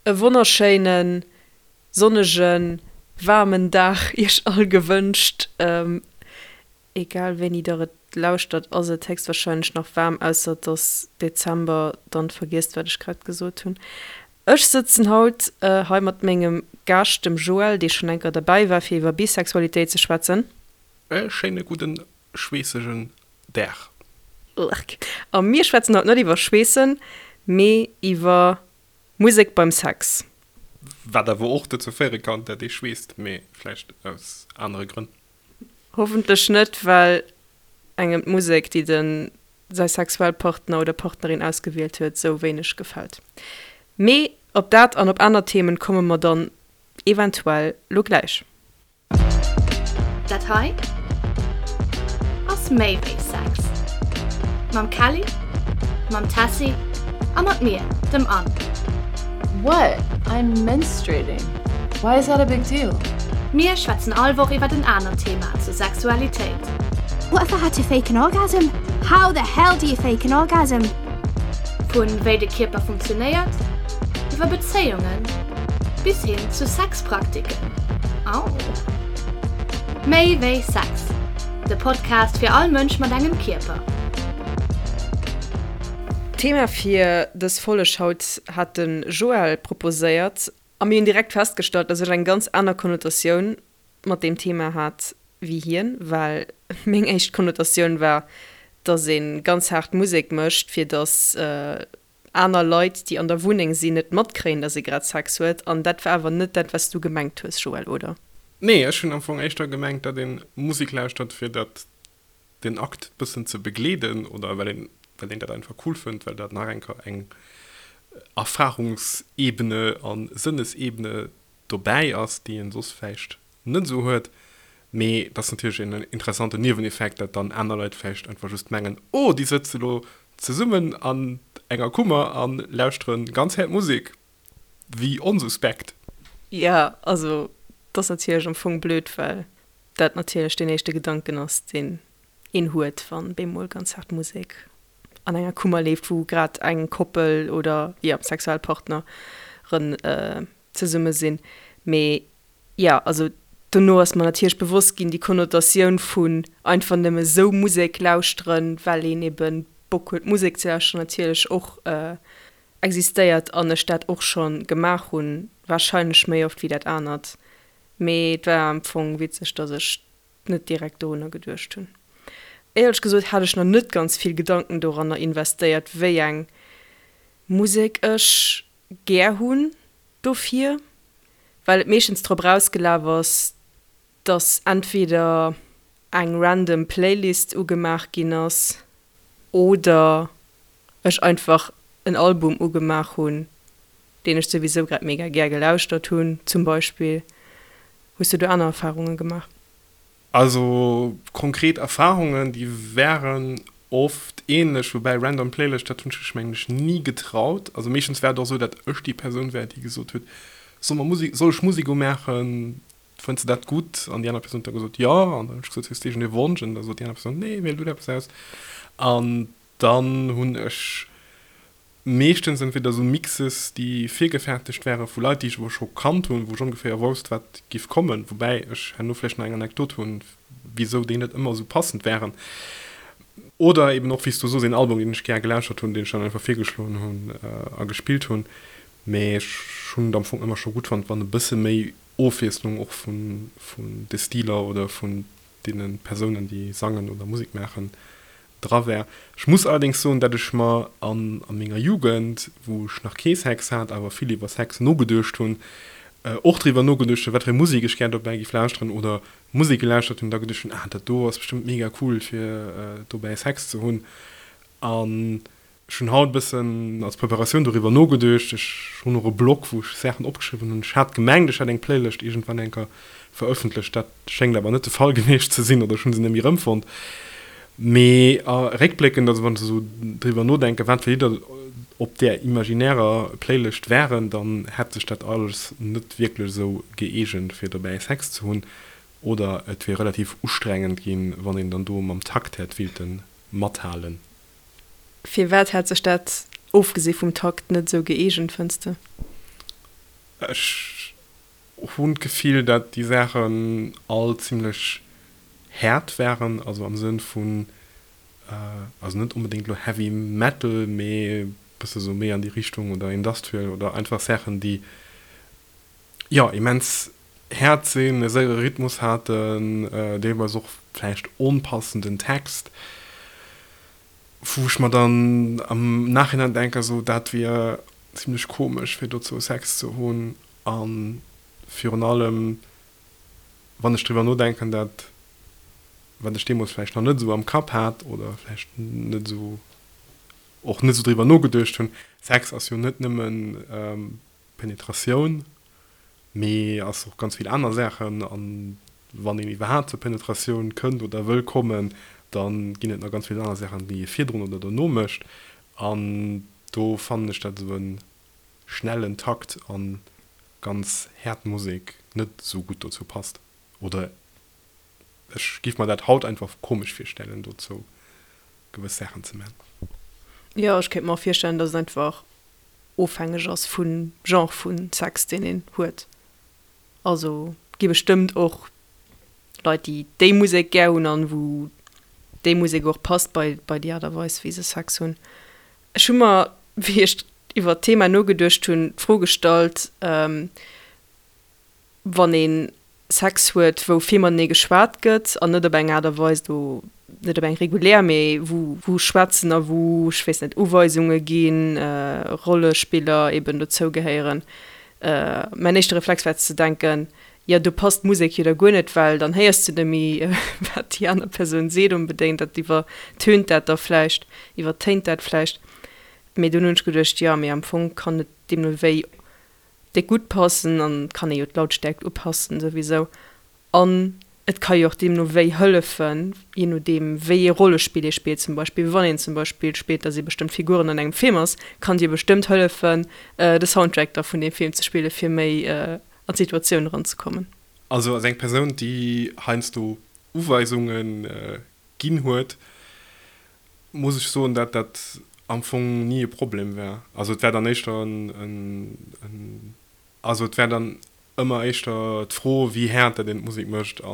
E wonnerschéinen, sonnegen, waarmen Dag iech all gewënscht. Egal wéini der et lauschtert ass et héchstwahrscheinlech nach waarm, ausser et ass Dezember, dann vergiesst wat ech grad gesot hunn. Ech sëtzen haut hei mat mengem Gaascht, dem Joël, dee schonn eng Kéier derbäi war fir iwwer Bisexualitéit ze schwätzen. E schéine gudden schweessegen Dag. Urgh. A mir schwätzen haut net iwwer Schweessen, mee iwwer Musek beim Sex. Wat awer och dozou féiere kann, dat ee schweesst, mee vläicht aus anere Grënn. Hoffentlech net, well engem d'Musek, déi de säi sexuell Partner oder Partnerin ausgewielt huet, sou wéineg gefält. Mee op dat an op aner Themen komme mer dann eventuell lo gläich. Dat hei ass méi wéi Sex. Mam Kelly, mam Tessy a mat mir, dem Anne. What? I'm menstruating. Why is that a big deal? Mir schwätzen all Woch iwwert en anert Thema zur Sexualitéit. What if I had to fake an orgasm? How the hell do you fake an orgasm? Vun wéi de Kierper funktionéiert, iwwer Bezéiungen bis hin zu Sexpraktiken. Au! Méi wéi Sex, de Podcast fir all Mënsch mat engem Kierper. D'Thema fir dës Folleg haut hat de Joël proposéiert a mir hunn direkt festgestallt, dass ech eng ganz aner Konnotatioun mat deem Thema hat wéi hien, well meng éischt Konnotatioun war, dass ee ganz haart Musek mécht, fir dass aner Leit, déi an der Wunneng sinn, net matkréien, dass ee grad Sex huet. An dat war awer net dat, wat s du gemengt hues, Joël, oder? Nee, ech hunn am Fong éischter gemengt, datt ee Musek lauschtert, fir datt den Akt bëssen ze begleeden oder well een, well een dat einfach cool fënnt, well dat nach eng Kéier eng Erfahrungsebene a Sënnesebene dobäi ass, déi een soss vläicht net esou huet. Mee et ass natierlech en interessanten Nieweneffekt, dat dann aner Leit vläicht einfach just mengen, oh déi sëtze lo zesummen an enger Kummer a lauschtere ganz haart Musek, wéi onsuspekt. Jo, also et ass natierlech am Fong blöd, well dat natierlech deen éischte Gedanken ass, deen een huet, wann bemol ganz haart Musek an enger Kummer leeft, wou grad eng Koppel oder, jo, Sexualpartneren zesumme sinn. Mee jo, also dono ass mer natierlech bewosst ginn, déi Konnotatioun vun einfach nëmme sou Musek lauschteren, well een ebe Bock huet Musek ze lauschteren, natierlech och existéiert an ech dat och scho gemaach hunn, warscheinlech méi oft wéi dat anert. Mee et war am Fong witzeg, dass ech net direkt dorunner geduecht hunn. Éierlech gesot hat ech nach net ganz vill Gedanken doranner investéiert, wéi eng Musek ech gär hunn dofir, well et meeschtens drop erausgelaf ass, dass entweder eng random Playlist ugemaach ginn ass oder ech einfach en Album ugemaach hunn, deen ech souwisou grad mega gär gelauschtert hunn, zum Beispill. Hues du do aner Erfarunge gemaach? Also konkret Erfahrungen, déi wären oft ähnlech, woubäi random Playlist, dat hunn ech mech mengen ech ni getraut. Also meeschtens war et och esou, dat ech déi Persoun war, déi gesot huet, soll mer Musek, soll ech Musek umaachen, fënns de dat gutt? An déi aner Persoun huet da gesot, jo. An dann hunn ech gesot, hues de iergendee Wonsch? An da sot déi aner Persoun, nee, wiel du eppes aus. An dann hunn ech Meeschtens entweder esou Mixes, déi virgefäertegt wäre vu Leit, déi ech awer scho kannt hunn, wou ech ongeféier wousst, wat giff kommen, woubäi ech herno vläicht nach eng Anekdot hunn, wisou déi net ëmmer esou passend wären. Oder eben och, wéi s du sos, een Album, deen ech gär gelauschtert hunn, deen ech dann einfach virgeschloen hunn a gespillt hunn. Mee ech hunn et am Fong ëmmer scho gutt fonnt, wann e bësse méi Ofwiesslung och vun de Stiler oder vun deene Persounen, déi sangen oder Musek maachen, dra wär. Ech muss allerdéngs soen, dat ech mer an a menger Jugend, wou ech nach kee Sex hat, awer vill iwwer Sex nogeduecht hunn, och driwwer nogeduecht hunn, wat fir eng Musek ech gär dobäi giff lauschteren oder Musek gelauschtert hunn, da geduecht hunn, ah dat do ass bestëmmt mega cool fir dobäi Sex ze hunn. An Ech hunn haut e bëssen als Preparatioun doriwwer nogeduecht. Ech hunn och e Blog, wou ech Saachen opgeschriwwen hunn. Ech hat gemengt, ech hätt eng Playlëscht iergendwann eng Kéier verëffentlecht. Dat schéngt awer net de Fall gewiescht ze sinn, oder ech hu se net méi erëmfonnt. Mee réckbléckend, also wann ech esou driwwer nodenken, wat fir Lidder op där imaginärer Playlëscht waren, dann hätt sech dat alles net wierklech esou gëeegent, fir dobäi Sex ze hunn. Oder et wier relativ ustrengend ginn, wann een dann do mam Takt hätt willte mathalen. Firwat hätt sech dat, ofgesi vum Takt, net esou gëeegent, fënns de? Ech hunn d'Gefill, dat déi Saachen all zimlech haart waren, also am Sënn vun, also net onbedéngt elo Heavy Metal, mee e bësse sou méi an déi Richtung oder Industrial oder einfach Saachen, déi, jo, immens haart sinn, e séiere Rhythmus haten, deelweis och vläicht onpassenden Text, wou ech mer dann am Nachhinein denken, sou dat wier zimlech komesch fir dozou Sex ze hunn a virun allem wann ech driwwer nodenken, dat wat ech deemools vläicht nach net esou am Kapp hat oder vläicht net esou och net esou driwwer nogeduecht hunn, Sex ass jo net nëmmen Penetratioun, mee ass och ganz vill aner Saachen. An wann een iwwerhaapt zur Penetratioun kënnt oder wëll kommen, da ginn et nach ganz vill aner Saachen, déi ee virdrun oder dono mécht. An do fannen ech, dat esou e schnellen Takt a ganz haart Musek net esou gutt dozou passt. Oder ech giff mer dat haut einfach komesch virstellen, dozou gewëss Saachen ze man. Jo, ech kéint mer och virstellen, dass et einfach ofhängeg ass vum Genre vu Sex, deen een huet. Also gi bestëmmt och Leit, déi déi Musek gär hunn an wou déi Musek och passt bei bei déi Aart a Weis, wéi se Sex hunn. Ech hu mer, wéi ech iwwer d'Thema nogeduecht hunn, d'Fro gestallt, wann ee Sex huet, wou vill matenee geschwat gëtt an net op eng Aart a Weis do, net op eng regulär, mee wou wou schwätzen a wou, ech weess net, Uweisunge ginn, Rollespiller eben dozou gehéieren. Mäin éischte Reflex war ze denken, jo do passt d'Musek jo da guer net, well dann héiers du net méi wat déi aner Persoun seet onbedéngt, dat iwwertönt dat da vläicht, iwwertéint dat vläicht. Mee dunn hunn ech geduecht, jo mee am Fong kann et deemno wéi déck gutt passen an et kann ee jo d'Lautstärkt upassen souwisou an et ka jo och deemno wéi hëllefen, je nodeem wéi ee Rollespill ee spillt zum Beispill. Wann een zum Beispill spillt, dass ee bestëmmt Figuren an engem Film ass, kann et jo bestëmmt hëllefen de Soundtrack da vun deem Film ze spille fir méi an d'Situatioun eranzekommen. Also als eng Persoun déi heiansdo Uweisunge ginn huet, muss ech soen, dat dat am Fong ni e Problem war. Also et war dann éischter en, also et war dann ëmmer éischter d'Fro, wéi haart dat een d'Musek mécht a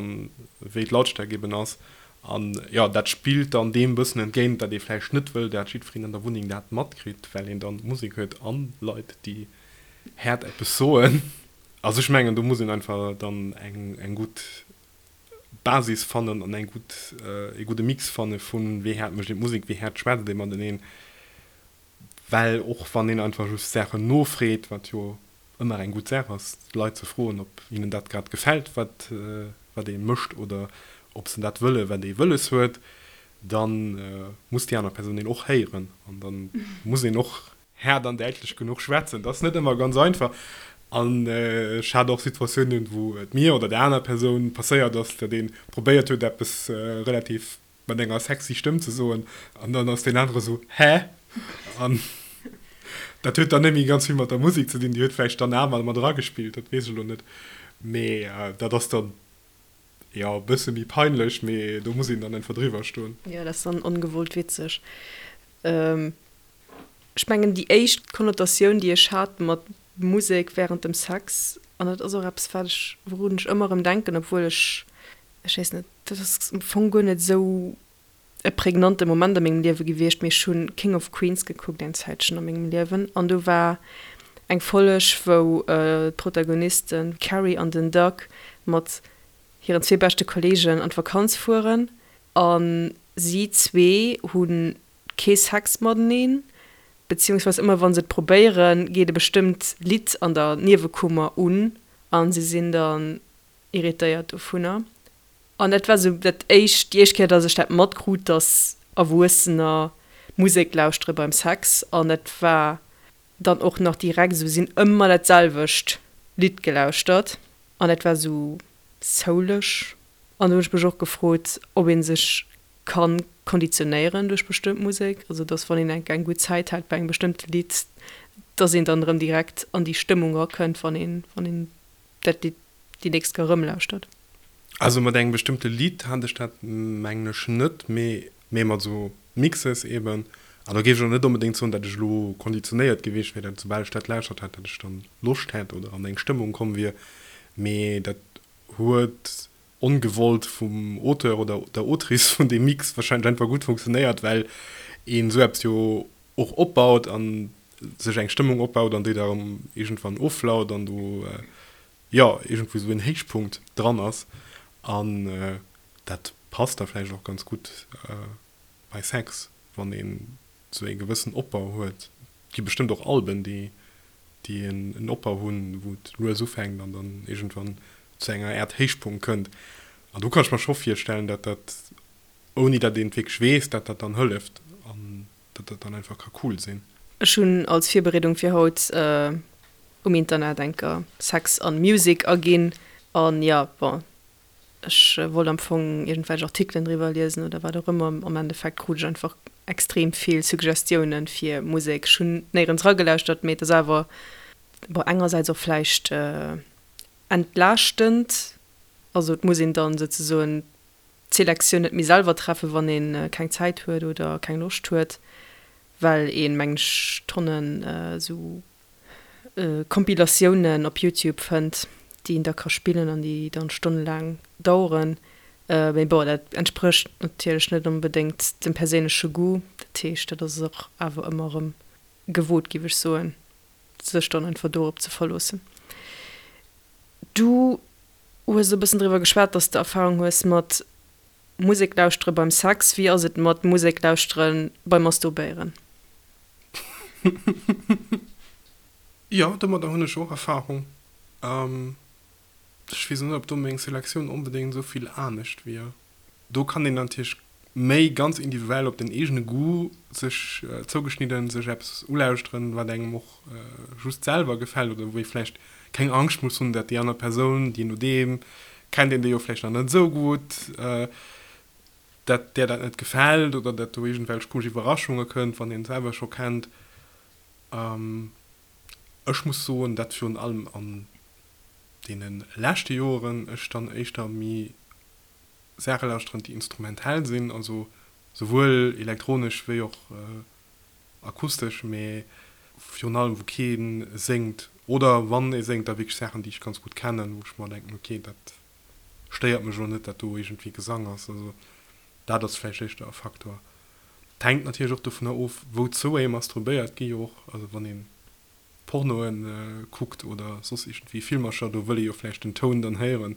wéi d'Lautstärk eben ass. An jo, dat spillt dann deem bëssen entgéint, dat ee vläicht net wëll, dat jiddwereen an der Wunneng dat matkritt, well een dann d'Musek huet an Leit, déi haart eppes soen. Also ech mengen, do muss een einfach dann eng gutt Basis fannen an eng gutt, ee gudde Mix fanne vun wéi haart mécht een d'Musek, wéi haart schwätzt ee mateneen. Well och wann een einfach just Saachen nofreet, wat jo ëmmer eng gutt Saach ass, d'Leit ze froen, ob hinnen dat grad gefält, wat wat ee mécht oder ob se dat wëlle wat ee wëlles huet, da muss déi aner Persoun een och héieren an da muss een och haart an däitlech genuch schwätzen. Dat ass net ëmmer ganz einfach an ech hat och Situatiounen, wou et mir oder der aner Persoun passéiert ass, datt ee probéiert huet, eppes relativ mat enger sexy Stëmm ze soen an dann ass deen anere sou, Hä? An dat huet dann net méi ganz vill mat der Musek ze dinn, déi huet vläicht dann awer mat eragespillt, dat weess ech elo net, mee dat ass dann, jo, e bësse méi peinlech, mee do muss een dann einfach driwwer stoen. Jo, dat ass dann ongewollt witzeg. Ech mengen déi éischt Konnotatioun déi ech hat mat Musek während dem Sex, an dat ass och eppes wat ech, wourun ech ëmmer erëm denken, obwuel ech, ech weess net, dat ass am Fong guer net esou e prägnante Moment a mengem Liewe gewiescht, mee ech hunn King of Queens gekuckt eng Zäitchen a mengem Liewen an do war eng Folleg wou d'Protagonisten d'Carrie an den Doug mat hiren zwee beschte Kollegen an d'Vakanz fueren a si zwee hunn kee Sex mateneen, beziehungsweise ëmmer wann se et probéieren, geet e bestëmmt Lidd an der Niewekummer un a se sinn dann irritéiert dovunner. An dat war sou dat éischt, déi éischt Kéier, dass ech dat matkrut, dass Erwuessener Musek lauschtere beim Sex. An dat war dann och nach direkt esou, si hunn ëmmer dat selwecht Lidd gelauschtert an dat war sou souleg. An do hunn ech mech och gefrot, ob ee sech Kann konditionéieren duerch bestëmmt Musek, also dass wann een eng eng gutt Zäit hat bei engem bestëmmte Lidd, dass een dann erëm direkt an déi Stëmmung erakënnt, wann een wann een dat Lidd déi nächst Kéier erëm lauschtert. Also mat engem bestëmmte Lidd hat ech dat mengen ech net, mee mee mat esou Mixes eben. An do géif ech och net onbedéngt soen, datt ech elo konditionéiert gewiescht wier, datt soubal ech dat lauschtert hätt, datt ech dann Loscht hätt oder an eng Stëmmung komm wier, mee dat huet ongewollt vum Auteur oder der Autrice vun deem Mix wahrscheinlech einfach gutt funktionéiert, well een esou eppes jo och opbaut an sech eng Stëmmung opbaut an déi da erëm iergendwann offlaut an do jo iergendwou esou en Héichpunkt dran ass an dat passt da vläicht och ganz gutt bei Sex, wann een esou ee gewëssen Opbau huet. Et gi bestëmmt och Alben, déi déi en Opbau hunn, wou et lues ufänkt an dann iergendwann zu enger Äert Héichpunkt kënnt. An do kann ech mer scho virstellen, dat dat, ouni dat een et wierklech weess, dat dat dann hëlleft an dat dat dann einfach ka cool sinn. Ech hunn als Virbereedung fir haut um Internet enker Sex an Music aginn an jo, bon, Ech wollt am Fong iergendwelch Artikelen driwwer liesen oder wat och ëmmer. Am Endeffekt krut ech einfach extrem vill Suggestiounen fir Musek. Ech hunn néierens eragelauschtert, mee et ass awer, bon, engersäits och vläicht entlaaschtend. Also et muss een dann souzesoen d'Selektioun net méi selwer treffen, wann ee keng Zäit huet oder keng Loscht huet, well een, mengen ech, Tonnen esou Compilatiounen op Youtube fënnt, déi een da ka spillen an déi dann stonnelaang daueren. Mee bon, dat entsprécht natierlech net onbedéngt dem perséinleche Goût. Dat heescht, dat ass och awer ëmmer erëm gewot, géif ech soen, sech dann einfach dorop ze verloossen. Du hues e bëssen driwwer geschwat, dass de Erfarung hues mat Musek lauschtere beim Sex. Wéi ass et mat Musek lauschtere beim Masturbéieren? Jo, domadder hunn ech och Erfahrung. Ech weess net, ob do meng Selektioun onbedéngt esou vill anescht wier. Do kann een natierlech méi ganz individuell op den eegene Goût sech zougeschnidden sech eppes ulauschteren, wat engem och just selwer gefält oder wou ee vläicht keng Angscht muss hunn, dat déi aner Persoun, jee nodeem kennt een déi jo vläicht nach net esou gutt, dat där dat net gefält oder dat do iergendwelch komesch Iwwerraschunge kënnt, wann een selwer scho kennt. Ech muss soen, dat virun allem an deene leschte Joeren ech dann éischter méi Saache lauschteren, déi instrumentell sinn, also souwuel elektronesch wéi och akustesch, mee virun allem wou kee séngt oder wann ee séngt, da wierklech Saachen, déi ech ganz gutt kennen, wou ech mer denken, ok, dat stéiert mech elo net, dat do iergendwéi Gesang ass. Also dat ass vläicht éischter e Faktor. Et hänkt natierlech och dovunner of, wouzou ee masturbéiert. Gi jo och, also wann ee Pornoe kuckt oder soss iergendwéi Filmercher, do wëll ee jo vläicht den Toun dann héieren.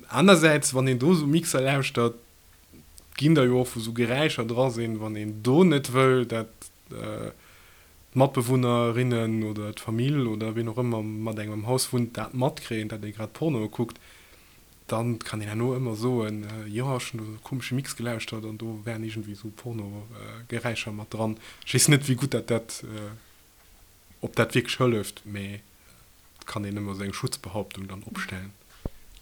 Anersäits, wann een do esou Mixer lauschtert, ginn der jo och, wou esou Geräischer dra sinn, wann een do net wëll, dat d'Matbewunnerinnen oder d'Famill oder ween och ëmmer mat engem am Haus wunnt, dat matkréien, dat ee grad Pornoe kuckt, dann kann een herno ëmmer soen, jo ech hunn do esou e komesche Mix gelauschtert an do waren iergendwéi esou Pornogeräischer mat dran. Ech weess net, wéi gutt dat dat, ob dat wierklech hëlleft, mee et kann een ëmmer esou eng Schutzbehauptung dann opstellen.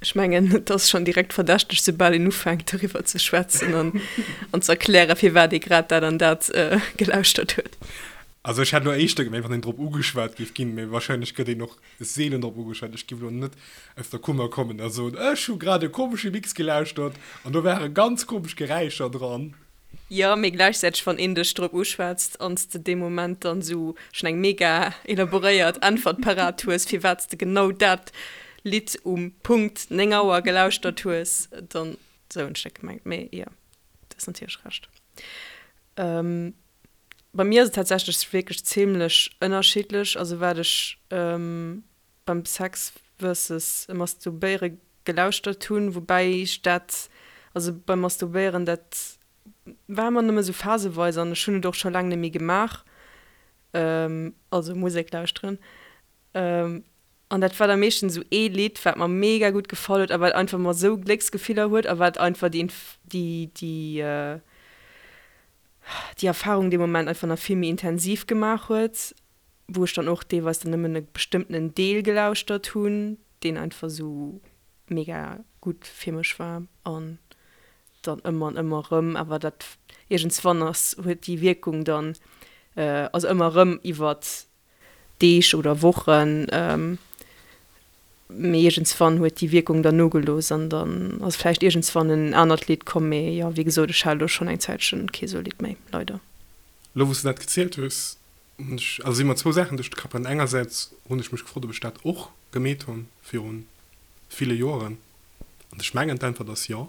Ech mengen, et ass schonn direkt verdächteg, soubal een ufänkt doriwwer ze schwätzen an an ze erklären, firwat ee grad dat an dat gelauschtert huet. Also ech hätt elo éischter gemengt, wann een drop ugeschwat géif ginn, mee wahrscheinlech gëtt een och seelen drop ugeschwat. Ech géif elo net aus der Kummer kommen a soen, ech hu grad e komesche Mix gelauschtert an do ware ganz komesch Geräischer dran. Jo, mee gläichzäiteg wann een dech drop uschwätzt an s de dee Moment dann esou schonn eng mega elaboréiert Äntwert parat hues, firwat s de genau dat Lidd um Punkt 9 Auer gelauschtert hues, dann, esou hunn ech dat gemengt. Mee jo, du hues natierlech Recht. Bei mir ass et tatsächlech wierklech zimlech ënnerschiddlech, also wat ech beim Sex versus Masturbéiere gelauschtert hunn, woubäi ech dat, also beim Masturbéieren, dat war ëmmer nëmme sou phaseweis an ech hunn et och scho laang net méi gemaach, also Musek lauschteren. An dat war da meeschtens esou ee Lidd, wat mer mega gutt gefall huet a wat einfach mer esou Glécksgefiller huet a wat einfach déi, déi, déi, déi Erfarung dee Moment einfach nach vill méi intensiv gemaach huet. wou ech dann och deelweis dann nëmmen e bestëmmtenen Deel gelauschtert hunn, deen einfach esou mega gutt fir mech war an dann ëmmer an ëmmer erëm, awer dat iergendswann ass, huet déi Wierkung dann, also ëmmer erëm iwwert Deeg oder Wochen. Mee iergendswann huet déi Wierkung dann nogelooss an dann ass vläicht iergendswann en anert Lidd komm. Mee jo, wéi gesot, ech hat elo schonn eng Zäitchen kee sou Lidd méi, leider. Elo wou s de dat gezielt hues, hunn ech, also si mer zwou Saachen duerch de Kapp gaangen. Engersäits hunn ech mech gefrot, ob ech dat och gemeet hunn viru ville Joeren. An ech mengen d'Äntwert ass jo.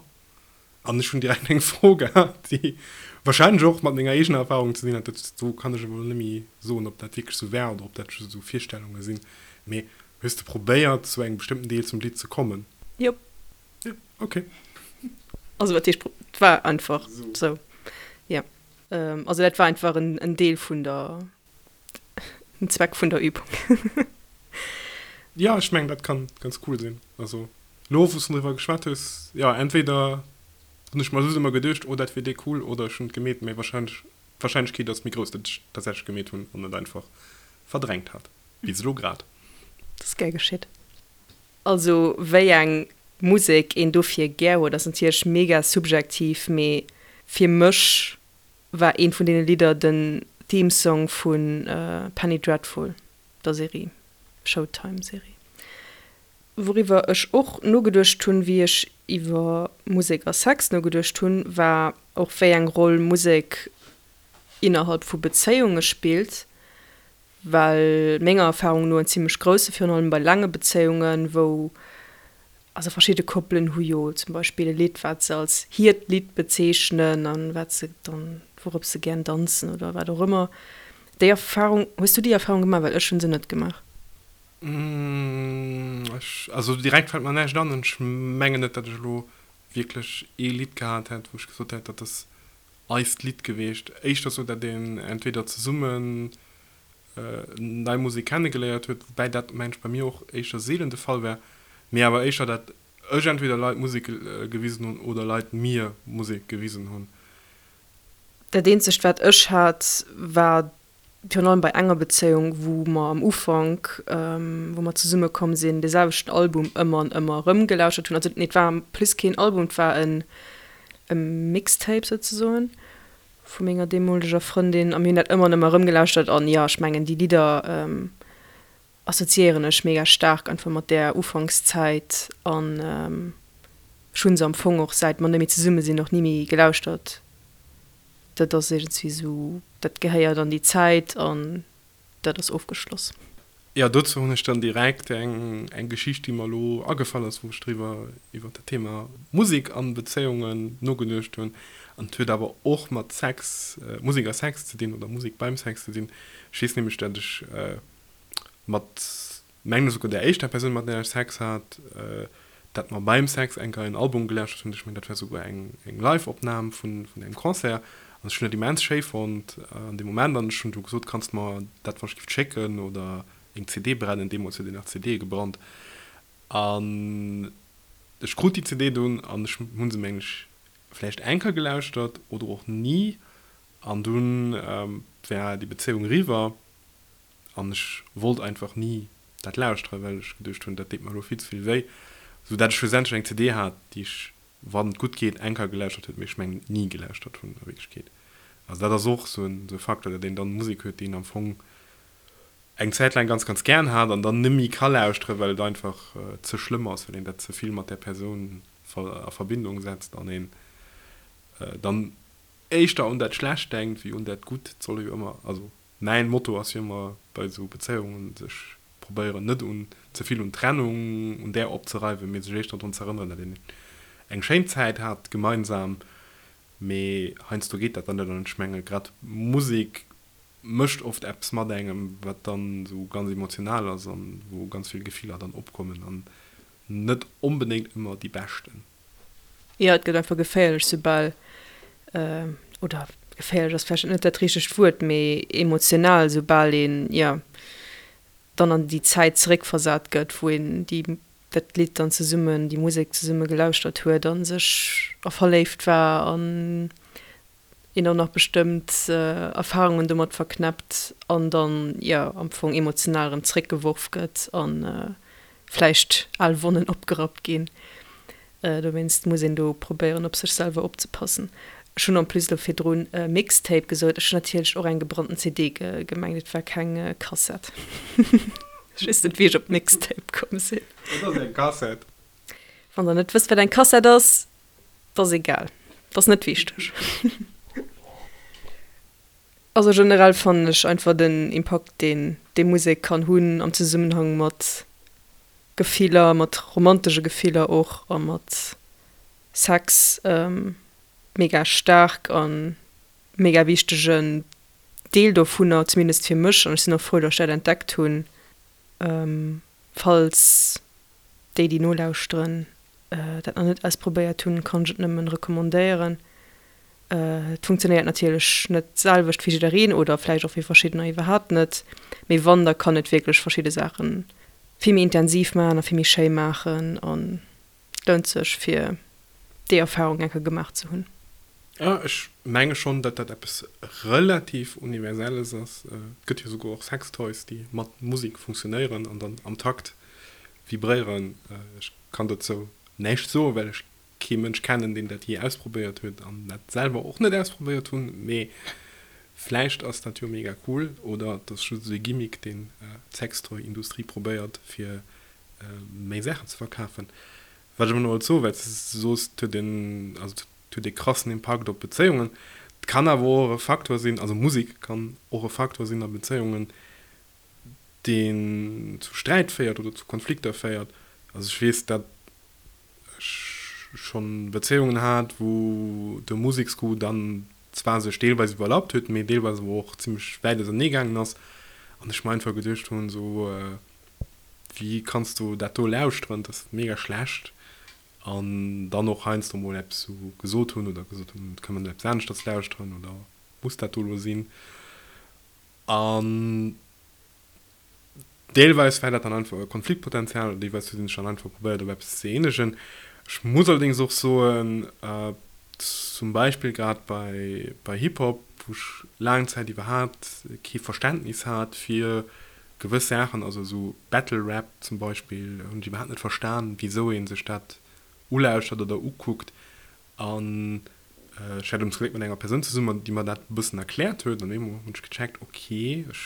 An ech hunn direkt eng Fro gehat, déi wahrscheinlech och mat menger eegener Erfahrung ze dinn hat. Dat do kann ech awer elo net méi soen, ob dat wierklech esou war oder ob dat just esou Virstellunge sinn. Mee hues de probéiert, zu engem bestëmmten Deel zum Lidd ze kommen? Jop. Jo, okay. Also wat heescht, et war einfach esou, jo. Also dat war einfach en Deel vun der, en Zweck vun der Übung. Jo, ech mengen, dat kann ganz cool sinn. Also elo, wou s du driwwer geschwat hues, jo, entweder hunn ech mer just ëmmer geduecht, oh, dat wier déi cool, oder ech hunn et gemeet, mee wahrscheinlech, d'Wahrscheinlechkeet ass méi grouss, datt ech tatsächlech gemeet hunn an et einfach verdrängt hat, bis elo grad. Dat ass gär geschitt. Also wéi eng Musek een dofir gär huet ass natierlech mega subjektiv, mee fir mech war eent vun deene Lidder den Theme Song vu Penny Dreadful, der Serie, Showtime Serie. Wouriwwer ech och nogeduecht hunn, wéi ech iwwer Musek a Sex nogeduecht hunn, war och wéi eng Roll Musek innerhalb vu Bezéiunge spillt. Well menger Erfahrung no en zimmlech grousse, virun allem bei laange Bezéiungen, wou, also verschidde Koppelen hu jo zum Beispill e Lidd, wat se als hiert Lidd bezeechnen an wat se dann, wourop se gären danzen oder wat och ëmmer. Déi Erfahrung, hues du déi Erfahrung gemaach? Well ech hu se net gemaach. Ech, also direkt fält mer näischt an. Ech mengen net, datt ech elo wierklech ee Lidd gehat hätt, wou ech gesot hätt, dat ass eist Lidd geweecht. Éischter sou, dat een entweder zesummen nei Musek kennegeléiert huet, woubäi dat mengen ech bei mir och éischter seelen de Fall war, mee awer éischter dat ech entweder Leit Musek gewisen hunn oder Leit mir Musek gewisen hunn. Dat eenzegt wat ech hat war virun allem bei enger Bezéiung, wou mer am Ufank, wou mer zesumme komm sinn, dee selwechten Album ëmmer an ëmmer erëm gelauschtert hunn. Also nee, et war en plus keen Album, et war en e Mixtape souzesoen vu menger deemoleger Frëndin a mir hunn dat ëmmer an ëmmer erëm gelauschtert an jo, ech mengen déi Lidder assoziéieren ech mega staark einfach mat där Ufankszäit an ech hu se am Fong och säit mer net méi zesumme sinn och ni méi gelauschtert. Dat ass iergendswéi esou, dat gehéiert an déi Zäit an dat ass ofgeschloss. Jo, dozou hunn ech dann direkt eng eng Geschicht, déi mer elo agefall ass, wou ech driwwer, iwwer dat Thema Musek an Bezéiungen nogeduecht hunn. An et huet awer och mat Sex, Musek a Sex ze dinn oder Musek beim Sex ze dinn. Ech weess nämlech, dat ech mat mengen esouguer där éischter Persoun, mat där ech Sex hat, dat mer beim Sex eng Kéier en Album gelauschtert hunn. Ech mengen, dat war esouguer eng Live-Opnam vun engem Concert. An ech hunn dat immens schéi fonnt an deem Moment. An ech hunn du gesot, Kanns de mer dat wann ech giff schécken oder eng CD brennen? Deemools huet een nach CDe gebrannt. An ech krut déi CD dunn an ech hu se, mengen ech, vläicht eng Kéier gelauschtert oder och ni. An dunn war déi Bezéiung eriwwer. An ech wollt einfach ni dat lauschteren, well ech geduecht hunn, dat deet mer elo vill ze vill wéi. Sou dat ech schlussendlech eng CD hat, déi ech, wann et gutt geet, eng Kéier gelauschtert huet, mee ech mengen ni gelauschtert hunn a Wierklechkeet. Also dat ass och sou en Facteur, dat een dann Musek huet, déi een am Fong eng Zäit laang ganz, ganz gären hat an dann net méi ka lauschteren, well et einfach ze schlëmm ass, well een dat ze vill mat där Persoun a Verbindung setzt an een dann éischter un dat Schlecht denkt wéi un dat Gutt. Et soll ee jo ëmmer, also Mäin Motto ass jo ëmmer bei esou Bezéiungen, sech probéieren net un ze vill un Trennung, un där opzereiwen, mee sech éischter drun ze erënneren, dat een eng schéin Zäit hat gemeinsam. Mee heiansdo geet dat dann net an ech menge grad Musek mécht oft eppes mat engem, wat dann esou ganz emotional ass an wou ganz vill Gefiller dann opkommen an net onbedéngt ëmmer déi beschten. Jo, et gëtt einfach geféierlech, soubal, oder geféierlech ass vläicht net dat richtegt Wuert, mee emotional, soubal een, jo, dann an déi Zäit zeréckversat gëtt, wou een déi, dat Lidd dann zesummen, déi Musek zesumme gelauschtert huet a sech a verléift war an een och nach bestëmmt Erfarungen domat verknäppt an dann, jo, am Fong emotional erëm zréckgeworf gëtt a vläicht al Wonnen opgerappt ginn. Dowéinst muss een do probéieren, op sech selwer opzepassen. Ech hunn en plus elo virdrun Mixtape gesot, ech hunn natierlech och eng gebrannten CD gemengt, et war keng Kassett. Ech weess net, wéi ech op Mixtape komm sinn. Wat ass eng Kassett? Wann der net wësst, wat eng Kassett ass, 't ass egal, 't ass net wichteg. Also generell fannen ech einfach den Impakt, deen déi Musek kann hunn am Zesummenhang mat Gefiller, mat romantesche Gefiller och a mat Sex, mega staark an mega wichtegen Deel dovunner, zumindest fir mech, an ech sinn och frou, datt ech dat entdeckt hunn. Falls déi, déi nolauschteren, dat nach net ausprobéiert hunn, kann ech et nëmmen recommandéieren. Et funktionéiert natierlech net d'selwecht fir jiddereen oder vläicht och fir verschiddener iwwerhaapt net, mee wann, da kann et wierklech verschidde Saache vill méi intensiv maachen a vill méi schéi maachen an et lount sech fir déi Erfarung eng Kéier gemaach ze hunn. Jo, ech menge schonn, datt dat eppes relativ Universelles ass. Et gëtt jo souguer och Sextoys, déi mat Musek funktionéieren an dann am Takt vibréieren. Ech kann dozou näischt soen, well ech kee Mënsch kennen, deen dat jee ausprobéiert huet an dat selwer och net ausprobéiert hunn. Mee vläicht ass dat jo mega cool oder et ass just esou ee Gimmick, deen d'Sextoy-Industrie probéiert, fir méi Saachen ze verkafen. Wat ech awer nach wollt soen, well s de soos, et huet een, also et huet ee krassen Impakt op Bezéiungen. Et kann awer och e Faktor sinn, also Musek kann och e Faktor sinn a Bezéiungen, deen zu Sträit féiert oder zu Konflikter féiert. Also ech weess, dat ech schonn Bezéiungen hat, wou de Museksgoût dann zwar sech deelweis iwwerlappt huet, mee deelweis awer och zimmlech wäit ausernee gaangen ass an ech mer einfach geduecht hunn, esou, Wéi kanns du dat do lauschteren, dat ass mega schlecht. An dann och heiansdo mol eppes sou gesot hunn oder gesot hunn, kënne mer net eppes aneschters lauschteren oder muss dat do elo sinn? An deelweis war dat dann einfach e Konfliktpotenzial oder deelweis huet een sech dann einfach probéiert op eppes ze eenegen. Ech muss allerdéngs och soen, zum Beispill grad bei bei Hip-Hop, wou ech laang Zäit iwwerhaapt kee Verständnis hat fir Gewëss Saachen, also esou Battle Rap zum Beispill, hunn ech iwwerhaapt net verstan, wisou ee sech dat ulauschtert oder ukuckt. An ech hat ums Gléck mat enger Persoun zesummen, déi mer dat e bëssen erkläert huet. An eemol hunn ech gecheckt, ok, ech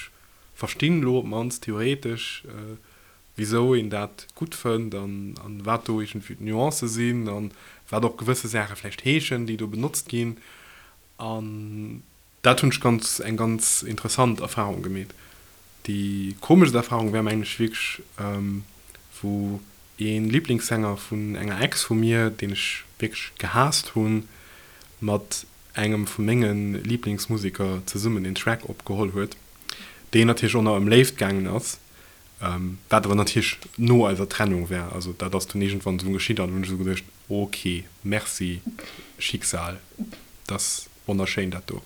verstinn elo op d'mannst theoretesch, wisou een dat gutt fënnt an wat do iergendwéi d'Nuancë sinn an wat och gewësse Saache vläicht heeschen, déi do benotzt ginn. An Dat hunn ech ganz eng ganz interessant Erfahrung gemeet. Déi komeschst Erfahrung war mengen ech wierklech wou een Lieblingssänger vun enger Ex vu mir, deen ech wierklech gehaasst hunn, mat engem vu mengen Lieblingsmuseker zesummen een Track opgeholl huet, deen natierlech och nach ëm Léift gaangen ass, wat awer natierlech no eiser Trennung war. Also dat ass dunn iergendwann esou geschitt an hunn ech esou geduecht, ok, merci Schicksal, dass Wonnerschéin dat do.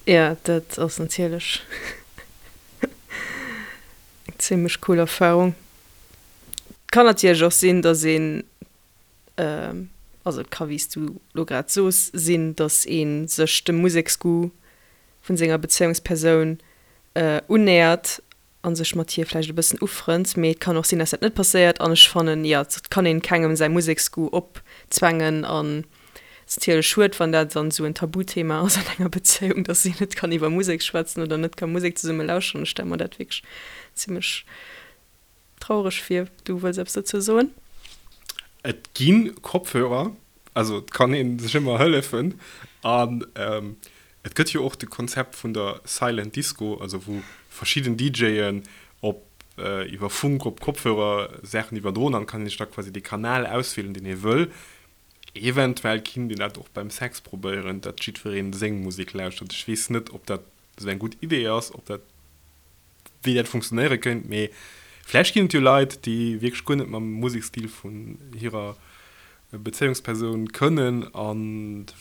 Jo, dat ass natierlech eng zimlech cool Erfahrung. Et kann natierlech och sinn, dass een, also et ka wéi s du lo grad soos sinn, dass ee sech dem Museksgoût vun senger Bezéiungspersoun unnähert a sech mat hir vläicht e bëssen ufrënnt, mee et kann och sinn, dass dat net passéiert an ech fannen, jo, et kann een kengem säi Museksgoût opzwängen an et ass natierlech schued, wann dat dann esou en Tabuthema ass an enger Bezéiung, dass een net kann iwwer Musek schwätzen oder net ka Musek zesumme lauschteren. Ech stelle mer dat wierklech zimmlech traureg vir. Du wëlls eppes dozou soen? Et gi Kopfhörer, also et kann ee sech ëmmer hëllefen an Et gëtt jo och de Konzept vun der Silent Disco, also wou verschidden DJen op iwwer Funk op Kopfhörer Saachen iwwerdroen an kann een sech da quasi dee Kanal auswielen, deen ee wëll. Eventuell kinnt een dat och beim Sex probéieren, datt jiddwereen seng Musek lauschtert. Ech weess net, ob dat esou eng gutt Idee ass, ob dat wéi dat funktionéiere kéint, mee vläicht ginn et jo Leit, déi wierklech guer net mam Musekstil vun hirer Bezéiungspersoun kënnen a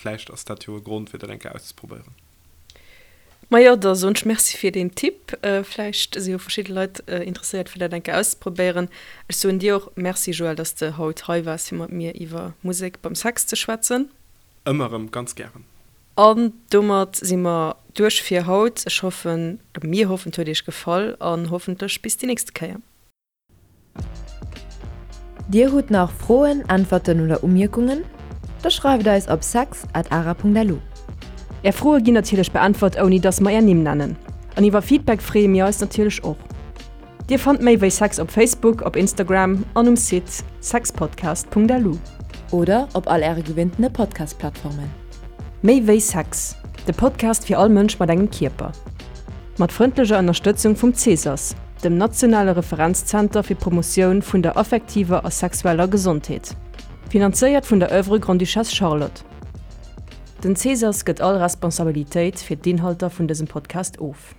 vläicht ass dat jo e Grond, fir dat eng Kéier auszeprobéieren. Majo, da soen ech Merci fir deen Tipp. Vläicht si jo verschidde Leit interesséiert, fir dat eng Kéier auszeprobéieren. Ech soen dir och Merci, Joël, dass de haut hei waars, fir mat mir iwwer Musek beim Sex ze schwätzen. Ëmmer erëm ganz gären. An domat si mer duerch fir haut. Ech hoffen, oder mir hoffen, et huet iech gefall an hoffentlech bis déi nächste Kéier. Dir hutt nach Froen, Äntwerten oder Umierkungen? Da schreift eis op sex at ara.lu. Är Froe ginn natierlech beäntwert ouni dass mer är Nimm nennen. An iwwer Feedback freeë mir eis natierlech och. Dir fannt méi wéi Sex op Facebook, op Instagram an um Site sexpodcast.lu. Oder op all Äre gewinntene Podcast-Plattformen. Méi wéi Sex, de Podcast fir all Mënsch mat engem Kierper. Mat frëndlecher Ënnerstëtzung vum Cesas, dem nationale Referenzzenter fir d'Promotioun vun der affektiver a sexueller Gesondheet. Finanzéiert vun der Oeuvre Grande-Duchesse Charlotte. Den Cesas gëtt all Responsabilitéit fir d'Inhalter vun dësem Podcast of.